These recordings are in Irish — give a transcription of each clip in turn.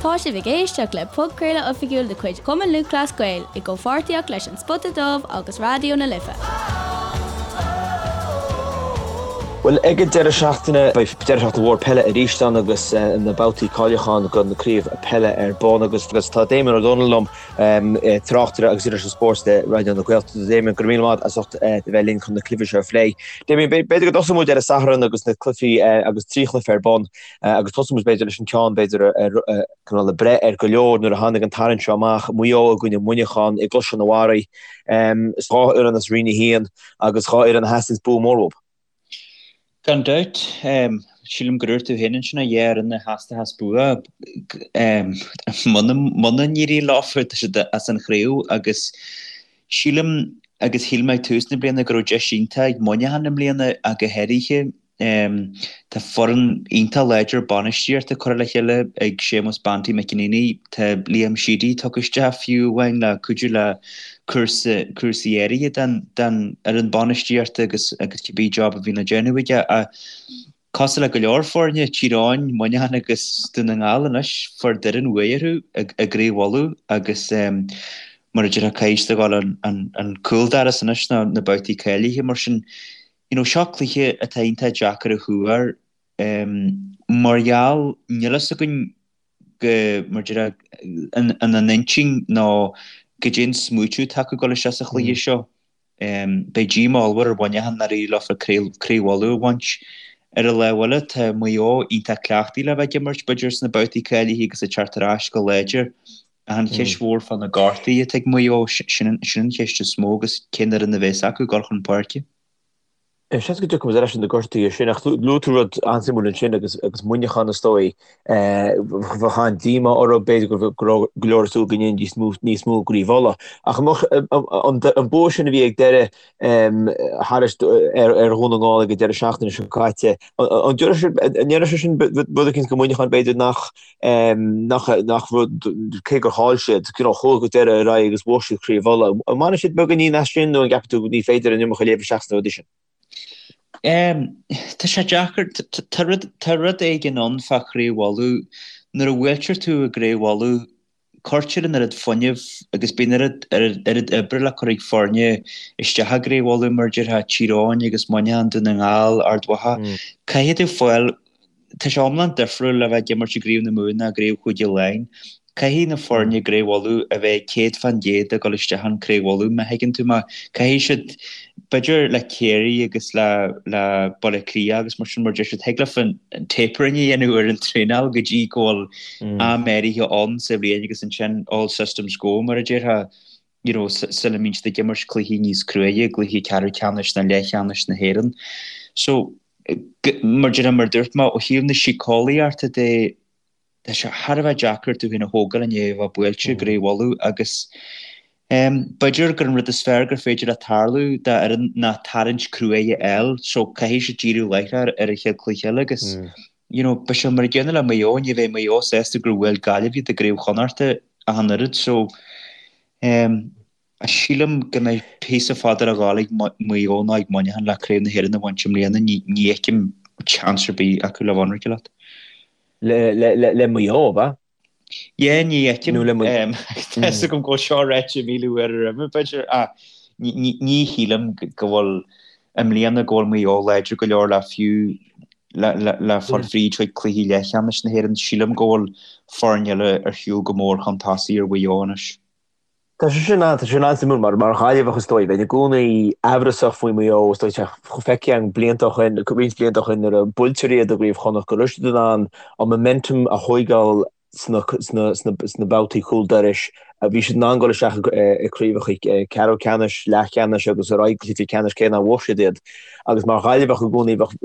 Tá sibh ag éisteacht le podchraoladh oifigiúil de chuid Chumann Lúthchleas Gael i gcomhpháirtíocht leis An Spota Dubh agus Raidió na Life. Bhuel, ag an deireadh seachtaine, beidh deireadh seachtaine mhór peile arís ann agus na babhtaí cáiliúcháin do na craobh peile ar bun agus tá Damien Ó Dónaill liom, tráchtaire agus iriseoir spóirt le Raidió na Gaeltachta. Damien, go raibh míle maith as ucht a bheith linn chun na cluichí seo a phlé. Damien, b'fhéidir go dtosóidh muid ar an Satharn agus na cluichí agus 3 chluiche ar bun. Agus tosóidh muid b'fhéidir leis an ceann b'fhéidir cineál ag breith ar go leor nuair a tháinig an tarraingt seo amach, Maigh Eo i gcoinne Mhuineacháin i gCaisleán an Bharraigh. Is 2 fhoireann as Roinn 1 agus 2 fhoireann a theastaíonns bua mór uathu. Gan dabht. Sílim gur dúirt tú féin ansin a dhá fhoireann a theastaíos bua. Muna n-éiríonn leo tá siad as an chraobh agus sílim agus shíl mé ag tús na bliana go raibh deis iontach ag Muineachán i mbliana ach go háirithe. Tá foireann iontach láidir bainistíochta curtha le chéile ag Séamus Banty McEneaney. Tá Liam Sheedy tugtha isteach fiú amháin le cuidiú le cúrsaí áirithe den fhoireann bainistíochta agus agus cibé job a bhíonn le déanamh aige. Ach cosúil le go leor foirne, Tír Eoghain, Muineachán agus Dún na nGall anois, fuair Doireann uaidh orthu i gCraobh Uladh agus mar a déarfá caithfidh siad a dhul an cúldoras anois nó na babhtaí cáilithe mar sin. You know, seo cluiche atá iontach deacair a thuar mar gheall, níl fhios againn go, mar a déarfá, ina n-intinn nó goidé an smaoitiú atá acu ag dul isteach sa chluiche seo. Beidh díomá ollmhór ar Mhuineachán nár éirigh leofa Craobh Uladh a bhaint. Ar an lámh eile, tá Maigh Eo iontach cleachtaithe le bheith ag imirt, b'fhéidir, sna babhtaí cáilithe agus ag teacht ar ais go láidir. Ach an cheist mhór fá na gortuithe atá ag Maigh Eo, sin an cheist is mó agus cén fhoireann a bheas acu ag dul chun páirce. Seans go dtiocfaidh muid ar ais ar na gortuithe sin, ach luaigh tú rud an-suimiúil ansin agus agus Muineachán is dóigh. Bheadh an-díomá orthu, b'fhéidir go raibh go leor ag súil go ndéanfaidís níos mó i gCraobh Uladh. Ach an bua sin a bhí ag deireadh thairis ar Dhún na nGall ag an deireadh seachtaine seo caite, an ndéarfadh sé sin rud eicínt do Mhuineachán b'fhéidir nach nach nach rud, cé gur chaill siad, you know, chuaigh go deireadh ar aghaidh agus bhuaigh siad Craobh Uladh. An mbainfidh siad beagáinín as sin nó an gceapann tú ní féidir an iomarca a léamh isteach sna rudaí sin? Tá sé deacair, tá rud, tá rud éigin ann fá Chraobh Uladh. Nuair a bhuailtear tú i gCraobh Uladh, cuirtear an oiread fuinnimh agus bíonn oiread, oiread oibre le cur ag foirne isteach i gCraobh Uladh, mar a déarfá, Tír Eoghain agus Muineachán, Dún na nGall, Ard Mhacha. Caithfidh tú fáil Tá sé iomlán difriúil le bheith ag imirt i gCraobh na Mumhan ná i gCraobh Chúige Laighean. Caithfidh na foirne i gCraobh Uladh a bheith 100% ag dul isteach in Craobh Uladh, má thuigeann tú mé. Caithfidh siad, b'fhéidir le Ciarraí agus le le Baile Átha Cliath agus mar sin, mar deir siad, thig leofa an tapering a dhéanamh ar an traenáil go dtí go bhfuil am áirithe ann sa bhliain agus ansin all systems go, mar a déarfá, you know, sula mbíonn siad ag imirt cluichí níos cruaidhe, cluichí ceathrú ceannais nó leathcheannais na hÉireann. So, Mar a déarfá, mar a dúirt mé, ó thaobh na síceolaíochta de, tá sé thar a bheith deacair tú féin a thógáil i ndiaidh a bheith buailte i gCraobh Uladh agus b'fhéidir gur an rud is fearr gur féidir le tarlú d'fhoireann ná tarraingt cruaidh a fháil so caithfidh siad díriú láithreach ar an chéad chluiche eile agus you know beidh sé mar an gcéanna le Maigh Eo, ní bheidh Maigh Eo sásta gur bhuail Gaillimh iad i gCraobh Chonnachta ach an oiread so Sílim go mbeidh píosa fada le ghabháil ag Maigh Eo nó ag Muineachán le Craobh na hÉireann a bhaint i mbliana. Ní fheicim seans ar bith acu le bheith ionraic leat. Le Maigh Eo, ab ea? Yeah, ní fheicim. Tá fhios agam go bhfuil seo ráite 1,000 uair roimhe, b'fhéidir, ach ní shílim go bhfuil i mbliana go bhfuil Maigh Eo láidir go leor le fiú le fáil fríd chuig cluichí leathcheannais na hÉireann. Sílim go bhfuil foirne eile ar shiúl go mór chun tosaigh ar Mhaigh Eo anois. Tá sé sin an, tá sé sin an-suimiúil mar, mar Ghaillimheach is dóigh, bheinn i gcónaí amhrasach faoi Mhaigh Eo, is dóigh, tá feicthe againn blianta ó shin, roinnt blianta ó shin nuair a buailtear iad i gCraobh Chonnacht go raibh siad in ann an momentum a thóigeáil sna, sna, sna, sna babhtaí cúl dorais. Bhí siad in ann dul isteach i craobhacha ceathrú ceannais, leathcheannais agus ar aghaidh go cluichí ceannais cé nár bhuaigh siad iad. Agus mar Ghaillimheach i gcónaí bheadh,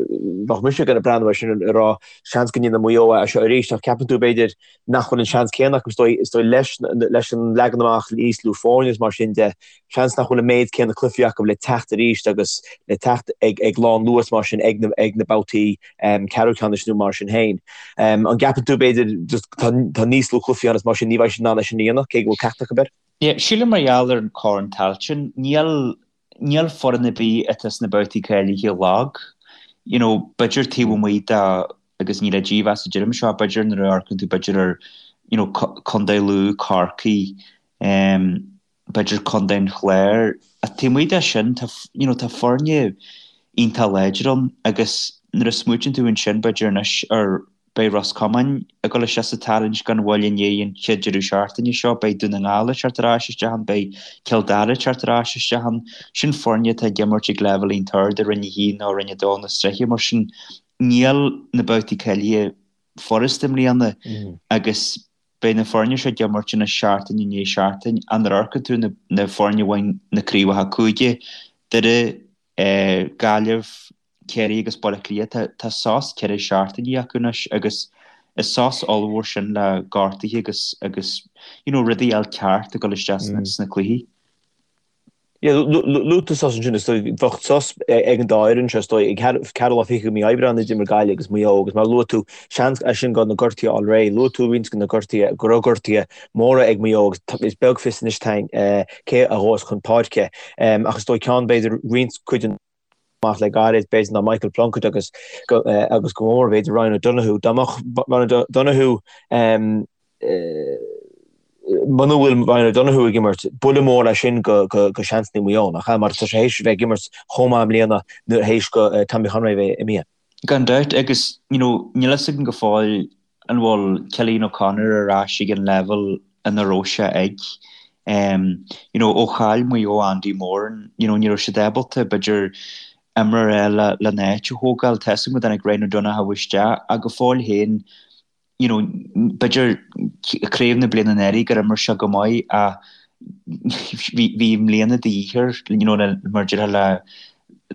bheadh mise ag breathnú air sin ag rá seans go ndéanfaidh Maigh Eo é seo arís ach ceapann tú b'fhéidir nach bhfuil an seans céanna acu, is dóigh, is dóigh leis, leis an leagan amach níos lú foirne is mar sin de, seans nach bhfuil an méid céanna cluichí acu le teacht arís agus le teacht ag, ag lánluas mar sin ag na, ag na babhtaí ceathrú ceannais nó mar sin féin. An gceapann tú, b'fhéidir, just tá, tá níos lú cluichí ann is mar sin ní bheidh siad in ann é sin a dhéanamh, cé go bhfuil ceacht acu air? Yeah, sílim mar gheall ar an Chorn Tailteann, níl, níl foireann ar bith atá sna babhtaí cáilithe lag. You know, b'fhéidir taobh amuigh de, agus ní le dímheas a deirim seo, b'fhéidir nuair a amharcann tú b'fhéidir ar. you know, Contae Lú, Corcaigh, b'fhéidir Contae an Chláir. Ach taobh amuigh de sin, tá, you know, tá foirne iontach láidir ann agus nuair a smaoitíonn tú ansin, b'fhéidir anois ar, beidh Ros Comáin ag dul isteach sa tarraingt gan mhoill i ndiaidh an chéad deireadh seachtaine seo, beidh Dún na nGall ag teacht ar ais isteach ann, beidh Cill Dara ag teacht ar ais isteach ann. Sin foirne atá ag imirt ag leibhéal iontach ard i Roinn 1 nó Roinn 2 na sraithe, mar sin níl na babhtaí cáilithe furasta i mbliana agus beidh na foirne seo ag imirt anois seachtain i ndiaidh seachtain. Ach nuair a amharcann tú na foirne a bhain na craobhacha cúige, Doire, Gaillimh, Ciarraí agus Baile Átha Cliath, tá sos 4 seachtainí acu anois agus is sos ollmhór sin le gortuithe agus agus you know rudaí a fháil ceart ag dul isteach sna cluichí. Yeah, luaigh tú sos ansin, is dóigh, bheadh sos ag an dá fhoireann seo, is dóigh, ag ceathrú lá fichead de mhí Aibreáin a d'imir Gaillimh agus Maigh Eo agus mar a luaigh tú, seans as sin go na gortuithe a fháil réidh. Luaigh tú roinnt de na gortuithe, go raibh gortuithe móra ag Maigh Eo agus is beag fios anois dúinn cé a ghabhfas chun páirce. Ach is dóigh ceann, b'fhéidir, roinnt cuid den amach le gairid, b'fhéidir, ná Michael Plunkett agus agus go mór, b'fhéidir, Ryan O'Donoghue. Dá mbeadh Ryan O'Donoghue muna bhfuil Ryan O'Donoghue ag imirt, buille mór é sin go seansanna Mhaigh Eo, nach ea? Mar tá sé théis a bheith ag imirt chomh maith i mbliana nuair théis go Tommy Conroy a bheith imithe. Gan dabht, agus you know níl fhios againn go fóill an bhfuil Cillian O'Connor ar ais ag an leibhéal ina raibh sé ag. You know ó chaill Maigh Eo Andy Moran, you know ní raibh siad ábalta b'fhéidir imreoir eile lena áit a thógáil. Tá fhios agam go dtáinig Ryan O'Donoghue isteach ach go fóill féin you know, b'fhéidir craobh na bliana anuraidh gur imir sé go maith ach bhí bhí i mbliana de dhíth air, you know, le mar a déarfá le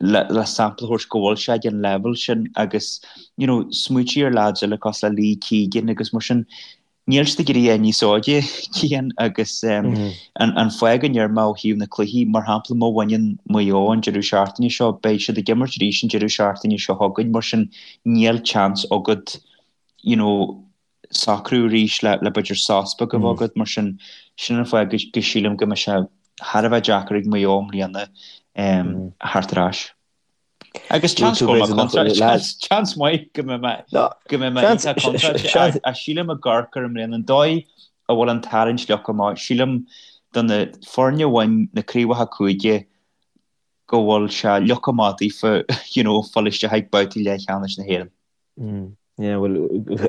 le le sampla a thabhairt go bhfuil sé ag an leibhéal sin agus, you know, smaoitigh ar lads eile cosúil le Lee Keegan agus mar sin, níl siad ag éirí níos óige, Cian, agus an an fáth go ndeir mé ó thaobh na cluichí, mar shampla má bhaineann Maigh Eo an deireadh seachtaine seo, beidh siad ag imirt arís an deireadh seachtaine seo chugainn, mar sin níl chance agat you know, socrú arís le, le b'fhéidir sos beag a bheith agat, mar sin, sin an fáth go, go sílim go mbeidh sé thar a bheith deacair ag Maigh Eo i mbliana um, theacht ar ais. Agus chance go mbeidh contráilte, chance, chance maith go mbeidh mé, go mbeidh mé iontach contráilte, ach sílim i gCorcaigh i mbliana, an dóigh a bhfuil an tarraingt leagtha amach, sílim do na foirne a bhain na craobhacha cúige go bhfuil sé leagtha amach daofa, you know, fáil isteach ag babhtaí leathcheannais na hÉireann. Yeah, bhuel,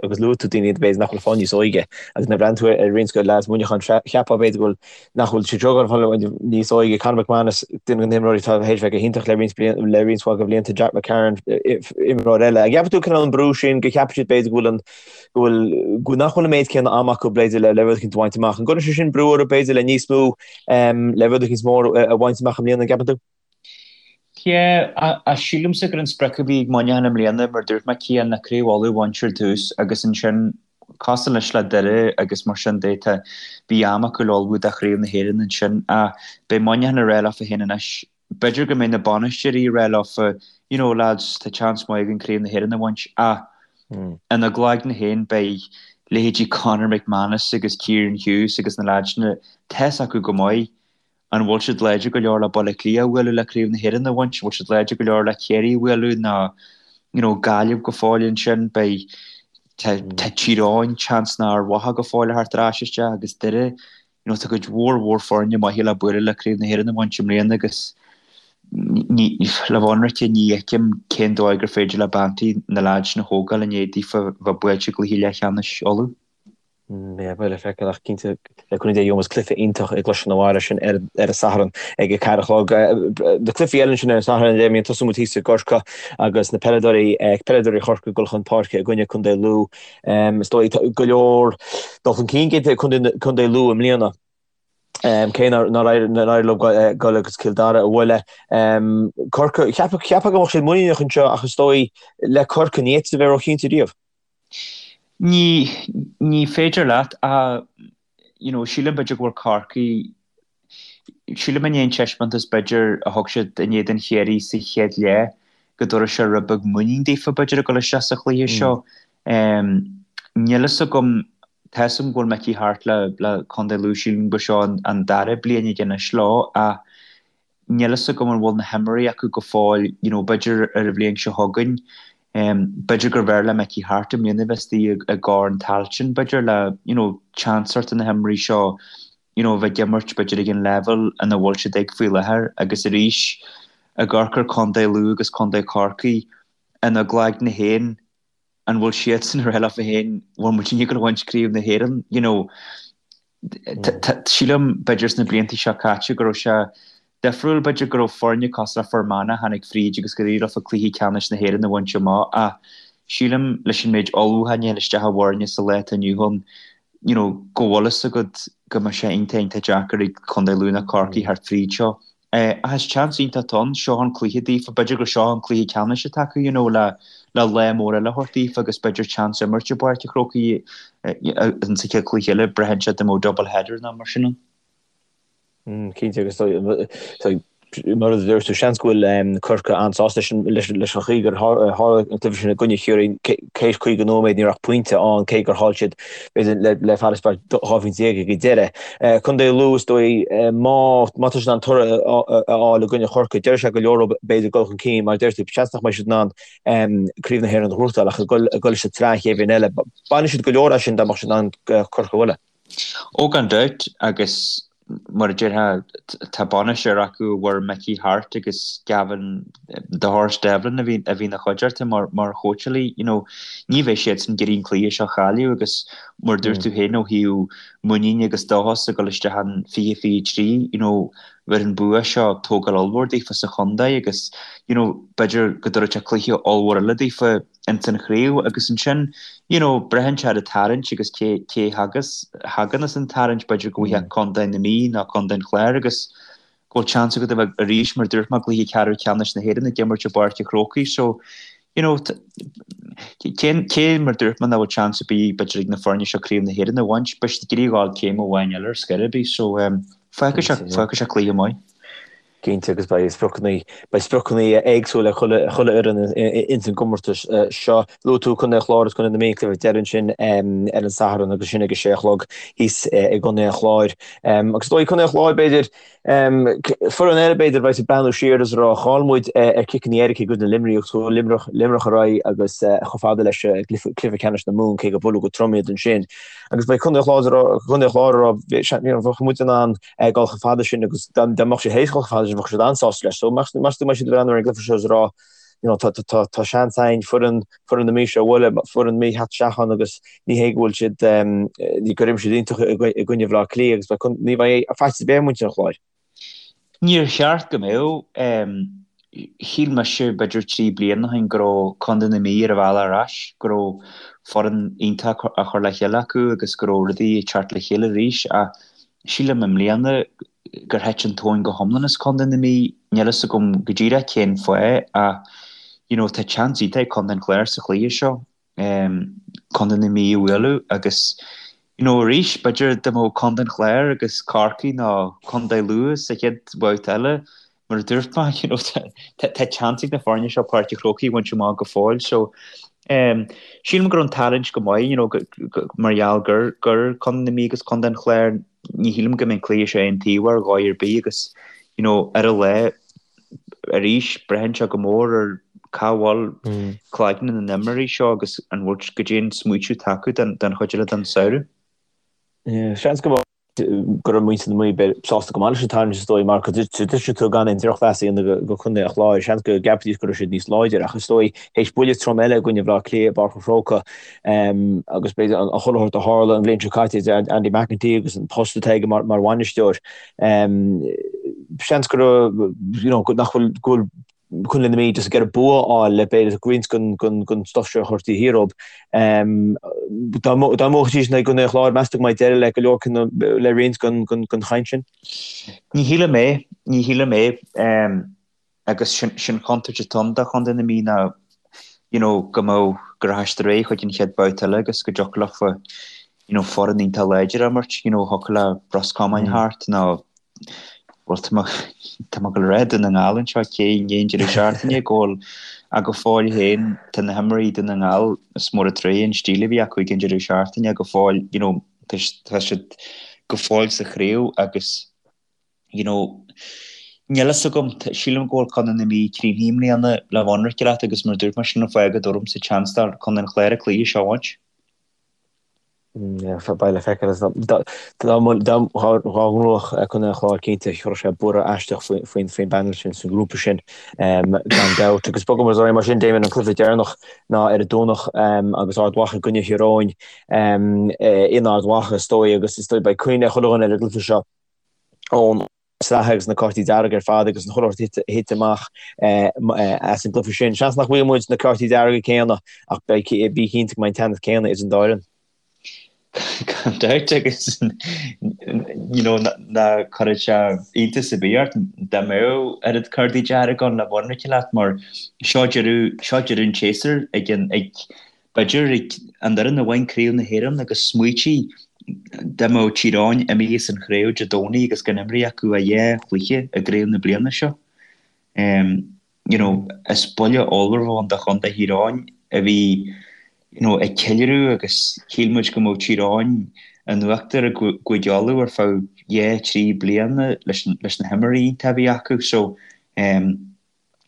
agus luaigh tú daoine b'fhéidir nach bhfuil ag fáil níos óige agus nuair a bhreathnaíonn tú ar roinnt de lads Mhuineacháin, cheapfá b'fhéidir go bhfuil, nach bhfuil siad ag fáil níos óige. Conor McManus, duine de na himreoirí atá théis bheith go hiontach le roinnt bliain, le roinnt mhaith de bhlianta, Jack McCarron, imreoir eile. An gceapann tú cineál an brú sin, go gceapann siad b'fhéidir go bhfuil an, go bhfuil, go nach bhfuil an méid céanna ama acu b'fhéidir le, le rud eicínt a bhaint amach. An gcuireann sé sin brú orthu b'fhéidir le níos mó, le rud eicínt mór a bhaint amach i mbliana, an gceapann tú? Yeah, ach sílimse gur an sprioc a bhí ag Muineachán i mbliana, mar dúirt mé, Cian, ná Craobh Uladh a bhaint ar dtús agus ansin cosúil anois le Doire agus mar sin de, tá, bhí am acu le ullmhú do Chraobh na hÉireann ansin ach beidh Muineachán ag rá leofa féin anois, b'fhéidir go mbeidh na bainisteoirí ag rá leofa, you know, lads, tá chance maith againn Craobh na hÉireann a bhaint ach ina gcloigne féin beidh leithéidí Conor McManus agus Kieran Hughes agus na lads sin, tá fhios acu go maith An bhfuil siad láidir go leor le Baile Átha Cliath a bhualadh le Craobh na hÉireann a bhaint? An bhfuil siad láidir go leor le Ciarraí a bhualadh nó you know Gaillimh go fóill ansin? Beidh tá tá Tír Eoghain chance nár mhaith go fóill a theacht ar ais isteach agus Doire you know tá cuid mhór mhór foirne maithe le bualadh le Craobh na hÉireann a bhaint i mbliana agus ní le bheith ionraice ní fheicim cén dóigh gur féidir le Banty na leaids sin a thógáil i ndiaidh daofa bheith buailte i gcluiche leathcheannais Uladh. Yeah, beidh le feiceáil ach cinnte le cúnamh Dé gheobhaidh muid cluiche iontach i gCrois na Mara sin ar ar an Satharn ag a 4 a chlog. Na cluichí eile ansin ar an Satharn Damien tosóidh muid thíos i gCorcaigh agus na peileadóirí peileadóirí Chorcaí ag dul chun páirce i gcoinne Contae Lú. Is dóigh go leor dul chun cinn déanta ag Contae Lú i mbliana. Cé nár éirigh leo dul agus Cill Dara a bhualadh. Corcaigh, cheapfá go mbeadh siad muiníneach anseo ach is dóigh le Corcaigh ní fhéadfá a bheith róchinnte riamh. Ní, ní féidir leat ach, you know, sílim b'fhéidir go bhfuil Corcaigh, sílim i ndiaidh an taispeántas b'fhéidir a thug siad in éadan Chiarraí sa chéad leath go dtabharfaidh sé rud beag muinín daofa b'fhéidir ag dul isteach sa chluiche seo. Níl fhios agam, tá fhios agam go bhfuil Mickey Harte le, le Contae Lú, sílim gur seo an, an dara bliain aige anois leo ach níl fhios agam an bhfuil na himreoirí acu go fóill, you know, b'fhéidir ar an bhliain seo chugainn. B'fhéidir gurbh fhearr le Mickey Harte i mbliana a bheith istigh i gCorn Tailteann, b'fhéidir, le you know chance a thabhairt do na himreoirí seo you know a bheith ag imirt b'fhéidir ag an leibhéal ina bhfuil siad ag faoi láthair agus arís ag amharc ar Contae Lú agus Contae Chorcaí ina gcloigne féin an bhfuil siadsan ag rá leofa féin bhfuil muidinne ag gabháil a bhaint Craobh na hÉireann you know sílim b'fhéidir sna blianta seo caite go raibh sé difriúil b'fhéidir go raibh foirne cosúil le Fear Manach a tháinig fríd agus gur éirigh leofa cluiche ceannais na hÉireann a bhaint amach ach sílim leis an méid ullmhúcháin a théann isteach i bhfoirne sa lá atá inniu ann you know go bhfuil fhios agat go mbeidh sé iontach iontach deacair ag Contae Lú nó Corcaigh theacht fríd seo. Ach is chance iontach atá ann, seo an cluiche daofa, b'fhéidir gur seo an cluiche ceannais atá acu you know le le lá mór eile a thabhairt daofa agus b'fhéidir chance imirt i bPáirc an Chrócaigh in sa chéad chluiche eile, braitheann sé dá mbeadh double header nó mar sin ann. Cinnte agus mar a dúirt tú, seans go bhfuil Corcaigh an-sásta leis an chaoi gur tharla an cluiche sin i gcoinne Chiarraí, théis 50 nóiméad ní raibh ach pointe ann cé gur chaill siad b'fhéidir le farasbarr 12 phointe ag an deireadh. Contae Lú is dóigh má tá siad in ann toradh a fháil i gcoinne Chorcaí, déarfaidh sé go leor leo b'fhéidir dul chun cinn mar a deir tú, seans nach mbeidh siad in ann Craobh na hÉireann a ghnóthachtáil ach ag dul sa tsraith an chéad bhliain eile. Bainfidh siad go leor as sin dá mbeadh siad in ann Corcaigh a bhualadh. Ó gan dabht, agus mar a déarfá, tá bainisteoir acu a bhfuair Mickey Harte agus Gavin 'The Horse' Devlin a bhí a bhí ina chuideachta mar mar chóitseálaí, you know, ní bheidh siadsan ag iarraidh an cluiche seo a chailleadh agus mar a dúirt tú féin ó thaobh muiníne agus dóchas ag dul isteach in 2023, you know, bheadh an bua seo tógáil ollmhór daofa sa chontae agus, you know, b'fhéidir go dtabharfadh sé cluiche ollmhór eile daofa. ins an chraobh agus ansin you know braitheann sé ar an tarraingt agus cé cé thagas thagann as an tarraingt b'fhéidir go bhfaighfeá Contae na Mí nó Contae an Chláir agus go bhfuil chance agat a bheith arís mar dúirt mé i gcluiche ceathrú ceannais na hÉireann ag imirt i bPáirc an Chrócaigh so you know cé cé mar dúirt mé nach bhfuil chance ar bith b'fhéidir ag na foirne seo craobh na hÉireann a bhaint beidh siad ag iarraidh a ghabháil céim amháin eile ar scor ar bith so um, fágfaidh sé fágfaidh sé cluiche maith. Cinnte, agus beidh spriocanna, beidh spriocanna éagsúla ag chuile, chuile fhoireann ins an gcomórtas seo. Luaigh tú Contae an Chláir agus Contae na Mí, cluiche deiridh ansin ar an Satharn agus sin ag a sé a chlog thíos i gContae an Chláir. Agus is dóigh Contae an Chláir b'fhéidir, foireann eile b'fhéidir a bheas ag breathnú siar agus ag rá chaill muid ar chiceanna éirice i gcoinne Luimnigh agus chuaigh Luimneach, Luimneach ar aghaidh agus chomh fada leis cluiche ceannais na Mumhan cé gur buaileadh go trom iad ansin. Agus beidh Contae an Chláir, Contae an Chláir ag rá bheadh muid in ann dul chomh fada sin agus dá mbeadh siad théis dul chomh fada sin bheadh siad an-sásta leis. So meas tú an mbeidh siad ag breathnú ar an gcluiche seo is ag rá you know tá tá tá seans againn foireann foireann na Mí seo a bhualadh, foireann na Mí theacht isteach ann agus ní hé go bhfuil siad ní gur imir siad iontach i gcoinne Bhaile Átha Cliath agus beidh ní bheidh faitíos ar bith ar mhuintir an Chláir. Níor cheart go mbeadh. Shíl mise b'fhéidir 3 bliana ó shin go raibh Contae na Mí ar a bhealach ar ais, go raibh foireann iontach á chur le chéile acu agus go raibh rudaí ag teacht le chéile arís ach sílim i mbliana gur thit an tóin go hiomlán as Contae na Mí. Níl fhios agam go díreach cén fáth ach you know tá chance iontach ag Contae an Chláir sa chluiche seo Contae na Mí a bhualadh agus you know arís b'fhéidir dá mbeadh Contae an Chláir agus Corcaigh nó Contae Lú sa chéad bhabhta eile mar a dúirt mé you know tá chance ag na foirne seo Páirc an Chrócaigh a bhaint amach go fóill so sílim go raibh an tarraingt go maith you know mar gheall gur gur Contae na Mí agus Contae an Chláir ní shílim go mbeidh an cluiche seo aontaobhach ar dhóigh ar bith agus you know ar an lá arís braitheann sé go mór ar cá bhfuil cloigne na n-imreoirí seo agus an bhfuil goidé an smaoitiú atá acu don chuid eile den samhradh. Seans go go raibh muintir na Mí sásta go maith leis an tarraingt is dóigh mar go dtuigeann tú gan aon drochmheas a dhéanamh go Contae an Chláir, seans go gceapfaidís go raibh siad níos láidre ach is dóigh théis buille trom eile i gcoinne Bhaile Átha Cliath i bPáirc an Chrócaigh agus b'fhéidir an chuile shórt a tharla an bhliain seo caite idir Andy McEntee agus an post atá aige mar bhainisteoir. Seans go raibh, you know, nach bhfuil, go bhfuil Contae na Mí just ag iarraidh bua a fháil le b'fhéidir roinnt den stuif seo a chur taobh thiar dóibh. Dá mbuafaidís in aghaidh Chontae an Chláir, meas tú go mbeidh deireadh le go leor le roinnt den chaint sin? Ní shílim é, ní shílim é. Agus sin chontúirt atá ann do Chontae na Mí ná you know go mbeadh go rachadh siad ar aghaidh chuig an chéad bhabhta eile agus go dtiocfadh leofa you know foireann iontach láidir a imirt, you know thiocfadh le Ros Comáin theacht nó bhuel tá mé tá mé ag dul a rá Dún na nGall anseo cé i ndiaidh an deireadh seachtaine go bhfuil ach go fóill féin tá na himreoirí Dún na nGall is mór an trua an stíl a bhí acu ag an deireadh seachtaine go fóill you know tá siad go fóill sa chraobh agus you know. Níl fhios agam, sílim go bhfuil Contae na Mí críochnaithe i mbliana le bheith ionraic leat agus mar a dúirt mé sin an fáth go dtabharfaimse chance do Chontae an Chláir an cluiche seo a bhaint. Beidh le feiceáil. Dá ngnóthódh Contae an Chláir cinnte chuirfeadh sé borradh aisteach faoin bpanel sin sa ngrúpa sin gan dabht. Agus bogfaidh muid ar aghaidh mar sin, Damien, an cluiche deireanach ná ar an Domhnach agus Ard Mhacha i gcoinne Thír Eoghain in Ard Mhacha is dóigh agus is dóigh beidh cuimhne ag chuile dhuine ar an gcluiche seo ón sraith agus na cártaí dearga ar fad agus an chuile shórt a thit amach as an gcluiche sin. Seans nach bhfaighidh muid na cártaí dearga céanna ach beidh bí cinnte go mbeidh an teannas céanna idir an dá fhoireann. Gan dabht agus you know ná cuirfeadh sé iontas ar bith ort dá mbeadh oiread cártaí dearga ann le bheith ionraic leat mar seo deireadh seo deireadh an tséasúir ag an ag B'fhéidir ag an fhoireann a bhain Craobh na hÉireann agus smaoitigh dá mbeadh Tír Eoghain imithe as an chraobh Dé Domhnaigh agus gan imrithe acu ach dhá chluiche i gcraobh na bliana seo. You know, is buille ollmhór a bheadh ann do chontae Thír Eoghain a bhí you know, ag ceiliúradh agus shíl muid go mbeadh Tír Eoghain in uachtar i gCúige Uladh ar feadh dhá, thrí bliana leis leis na himreoirí iontacha a bhí acu. So,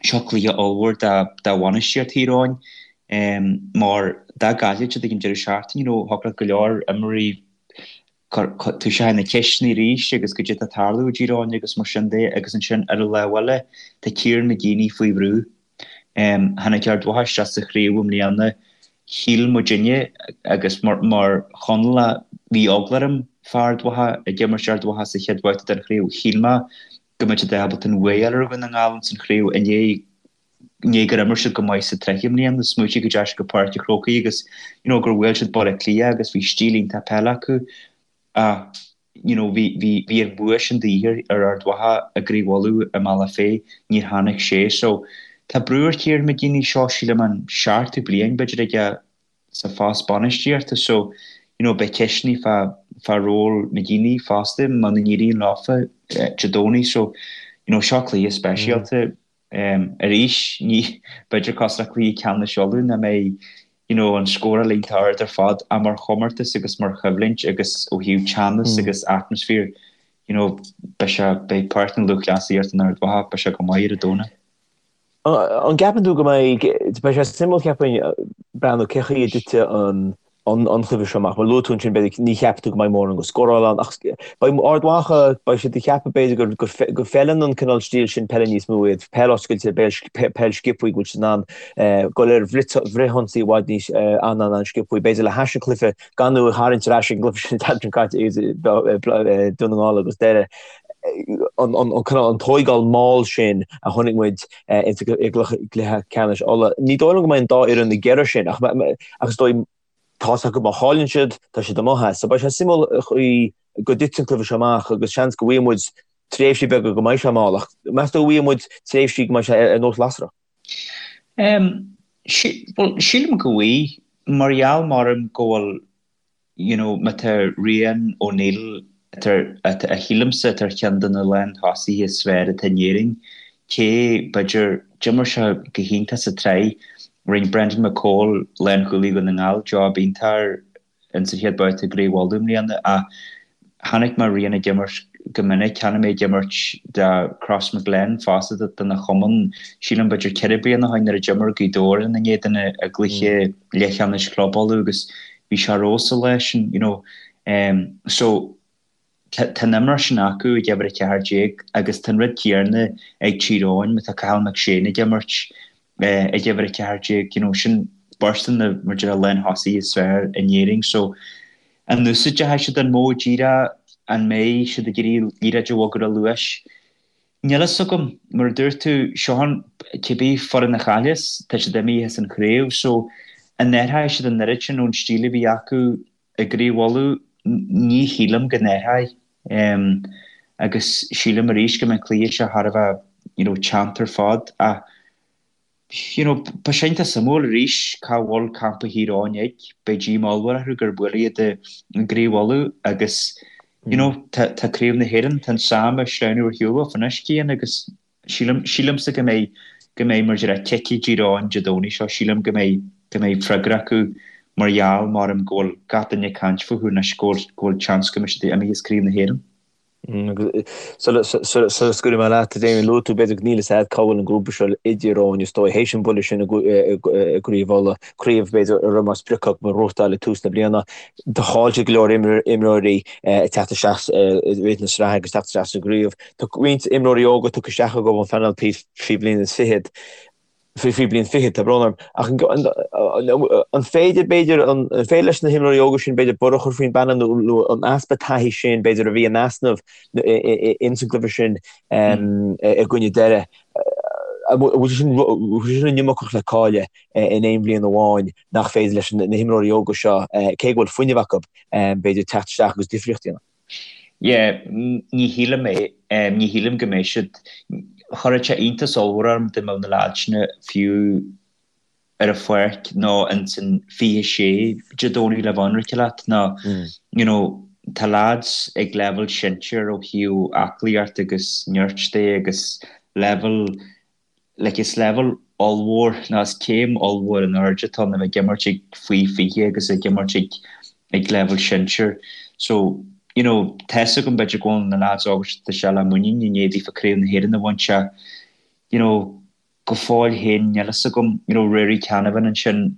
Seo cluiche ollmhór do bhainistíocht Thír Eoghain mar dá gcaillfeadh siad ag an deireadh seachtaine, you know, thiocfadh le go leor imreoirí toiseacht na ceisteanna arís agus goidé atá ag tarlú i dTír Eoghain agus mar sin de agus ansin ar an lámh eile tá Kieran McGeeney faoi bhrú. Tháinig Ard Mhacha isteach sa chraobh i mbliana, shíl muidinne agus mar Chonallach bhí eagla orm fá Ard Mhacha ag imirt Ard Mhacha sa chéad bhabhta den chraobh, shíl mé go mbeadh siad ábalta an bua a fháil ar Dhún na nGall ins an chraobh i ndiaidh i ndiaidh gur imir siad go maith sa tsraith i mbliana. Smaoitigh go dteachaigh siad go Páirc an Chrócaigh agus you know gur bhuail siad Baile Átha Cliath agus bhí stíl iontach peile acu ach you know bhí bhí bhí an bua sin de dhíth ar Ard Mhacha i gCraobh Uladh i mBealach Féich níor tháinig sé so tá brú ar Kieran McGeeney seo sílim an seachtú bliain b'fhéidir aige sa phost bainistíochta so you know beidh ceisteanna fá fá ról McGeeney fosta muna n-éiríonn leofa Dé Domhnaigh so you know seo cluiche speisialta um arís ní b'fhéidir cosúil le cluiche ceannais Uladh nach mbeidh you know an scóráil iontach ard ar fad ach mar chomórtas agus mar choimhlint agus ó thaobh teannas agus atmaisféar you know beidh sé beidh Páirc na Lúthchleasaíochta in Ard Mhacha beidh sé go maith ar an Domhnach. An gceapann tú go mbeidh, beidh sé suimiúil cheapfainn breathnú cé chaoi a dtitfidh an an cluiche seo amach. Mar luaigh tú ansin b'fhéidir ní cheapann tú go mbeidh mórán go scóráil ann ach beidh Ard Mhacha, beidh siad ag ceapadh b'fhéidir gur go bhfeileann an cineál stíl sin peile níos mó iad, peil oscailte, peil sciobtha go bhfuil siad in ann dul ar bhfrithionsaí i bhfad níos an-an-an-sciobtha. B'fhéidir le hais an chluiche gan tú a tharraingt ar ais ag an gcluiche sin an tseachtain seo caite Dún na nGall agus Doire. an cineál an tóigeáil mall sin a chonaic muid i gcluiche ceannais Uladh. Ní dóigh liom go mbeidh an dá fhoireann ag iarraidh sin ach ach is dóigh tá's acu má chailleann siad tá siad amuigh as. So beidh sé suimiúil an chaoi go dtitfidh an cluiche seo amach agus seans go bhfaighidh muid tréimhsí beaga go mbeidh sé mall ach meas tú go bhfaighidh muid tréimhsí go mbeidh sé ar nós lasrach? Bhuel sílim go bhfaighidh mar gheall maram go bhfuil you know má tá Rian O'Neill atá, atá, a shílimse atá ar cheann de na lán-thosaithe is fearr atá in Éirinn, cé, b'fhéidir, d'imir sé go hiontach sa tsraith, rinne Brendan McCole, lánchúlaí Dhún na nGall, job iontach air ins an chéad babhta i gCraobh Uladh i mbliana ach chonaic mé Rian ag imirt go minic, chonaic mé ag imirt do Crossmaglen fosta dona chumann, sílim b'fhéidir 4 bliana ó shin nuair a d'imir Gaoth Dobhair ina n-éadan i gcluiche leathcheannais Chlub Uladh agus bhí sé ar fheabhas an lá sin, you know. Um, so, tá an imreoir sin acu ag uimhir 14 agus tá an rud céanna ag Tír Eoghain má tá Cathal McShane ag imirt eh, ag uimhir 14, you know, sin beirt de na mar deir lán-thosaithe is fearr in Éirinn. So, an úsáidfidh siad an modh díreach, an mbeidh siad ag iarraidh liathróid a bhogadh ar luas? Níl fhios agam, mar a dúirt tú, seo an, cibé foireann a chailleas, tá siad imithe as an chraobh, so an athróidh siad an oiread sin ón stíl a bhí acu i gCraobh Uladh? Ní shílim go n-athróidh. Agus sílim arís go mbeidh an cluiche seo thar a bheith, you know, teannta ar fad ach, You know, beidh sé iontach suimiúil arís cá bhfuil campa Thír Eoghain ag. Beidh díomá ollmhór orthu gur buaileadh iad i gCraobh Uladh agus you know, tá, tá Craobh na hÉireann, tá an sam ag sleamhnú ar shiúl dóibh anois, Cian, agus sílim, sílimse go mbeidh, go mbeidh mar a déarfá cic ag Tír Eoghain Dé Domhnaigh seo, sílim go mbeidh, go mbeidh freagra acu mar gheall, maram, go bhfuil gach duine ag caint fúthu anois, go bhfuil, go bhfuil seans go mbeidh siad imithe as Craobh na hÉireann. Sula scaoilfidh mé leat, Damien, luaigh tú b'fhéidir go níl fhios a'd cá bhfuil an grúpa seo i dTír Eoghain is dóigh, théis an buille sin i gCraobh Uladh, craobh b'fhéidir a raibh mar sprioc acu a ghnóthachtáil ag tús na bliana. Do chaill siad go leor imreoirí ag teacht isteach i rith na sraithe agus teacht isteach sa gcraobh. Tá roinnt imreoirí óga tugtha isteach acu ón phainéal faoi bhliain is fichead. Faoi bliain fichead, tá brón orm. Ach an féidir, b'fhéidir, an féidir leis na himreoirí óga sin, b'fhéidir, borradh a chur faoin bpainéal nó an easpa taithí sin, b'fhéidir, a bhí in easnamh ins an gcluiche sin i gcoinne Doire, an bhfuil sé sin, bhfuil sé sin an iomarcach le cailleadh in aon bhliain amháin nach féidir leis na himreoirí óga seo, cé go bhfuil fuinneamh acu, b'fhéidir, teacht isteach agus difríocht a dhéanamh? Yeah, ní shílim é. Ní shílim go mbeidh siad. Chuirfeadh sé iontas ollmhór orm dá mbeadh na leaids sin fiú ar an pháirc nó ins an 26 Dé Domhnaigh le bheith ionraice leat nó you know tá leaids ag leibhéal sinsir ó thaobh aclaíocht agus nirt de agus leibhéal like is leibhéal ollmhór nó is céim ollmhór in airde atá ann a bheith ag imirt ag faoi 20 agus ag imirt ag ag leibhéal sinsir. So, you know, tá's agam b'fhéidir go bhfuil na lads óga seo tá sé le muinín i ndiaidh daofa Craobh na hÉireann a bhaint ach, you know, go fóill féin níl fhios agam, you know, Ruairí Canavan ansin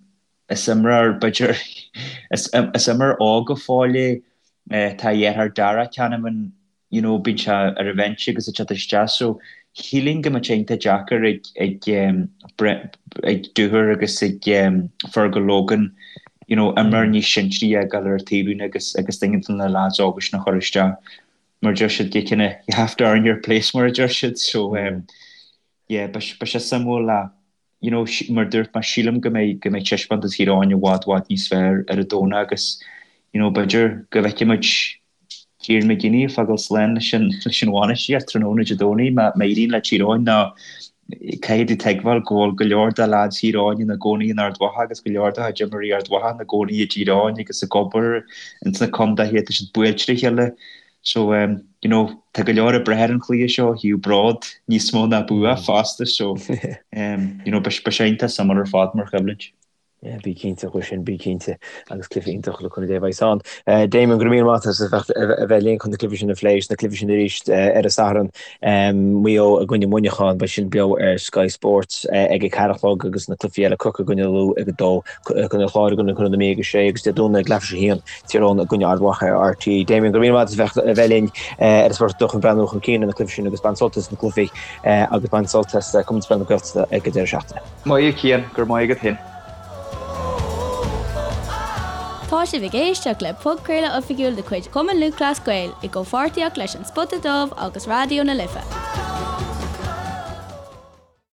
is imreoir b'fhéidir is is imreoir óg go fóill é, tá a dheartháir Darragh Canavan you know bíonn sé ar an bhinse agus ag teacht isteach so shílfinn go mbeadh sé iontach deacair ag ag ag Dooher agus ag Fergal Logan you know imreoir níos sinsearaí a fhágáil ar an taobhlíne agus agus duine de na lads óga sin a chur isteach mar deir siad you kinda you have to earn your place mar a deir siad so yeah beidh sé suimiúil le you know mar dúirt mé sílim go mbeidh go mbeidh taispeántas Thír Eoghain i bhfad bhfad níos fearr ar an Domhnach agus you know b'fhéidir go bhfeicfidh muid Kieran McGeeney ag fágáil slán leis an leis an bhainistíocht tráthnóna Dé Domhnaigh má má éiríonn le Tír Eoghain nó caithfidh tú tuigbheáil go bhfuil go leor de lads Thír Eoghain ina gcónaí in Ard Mhacha agus go leor de chuid imreoirí Ard Mhacha ina gcónaí i dTír Eoghain agus ag obair ins na contaetha tá siad buailte ar a chéile So, you know, tá go leor ag brath ar an chluiche seo ó thaobh bród níos mó ná bua fosta so, you know, beidh sé iontach suimiúil ar fad mar choimhlint. Yeah, bí cinnte faoi sin, bí cinnte. Agus cluiche iontach le cúnamh Dé a bheas ann. Damien, go raibh míle maith agat as a bheith linn chun na cluichí sin a phlé, na cluichí sin arís ar an Satharn. Maigh Eo i gcoinne Mhuineacháin, beidh sin beo ar Sky Sports ag a ceathair a chlog agus na cluichí eile Corcaigh i gcoinne Lú ag a dó, Contae an Chláir i gcoinne Contae na Mí ag a sé agus Dé Domhnaigh ag leathuair tar éis a haon, Tír Eoghain i gcoinne Ard Mhacha ar RTÉ. Damien, go raibh míle maith agat as a bheith linn ar an Spota Dubh chun breathnú chun cinn ar na cluichí sin agus bain sult as na cluichí agus bain sult as Comórtas Peile na Gaeltachta ag an deireadh seachtaine. Maith thú Cian, go raibh maith agat féin. Tá sibh ag éisteacht le podchraoladh oifigiúil de chuid Chumann Lúthchleas Gael i gcomhpháirtíocht leis An Spota Dubh agus Raidió na Life.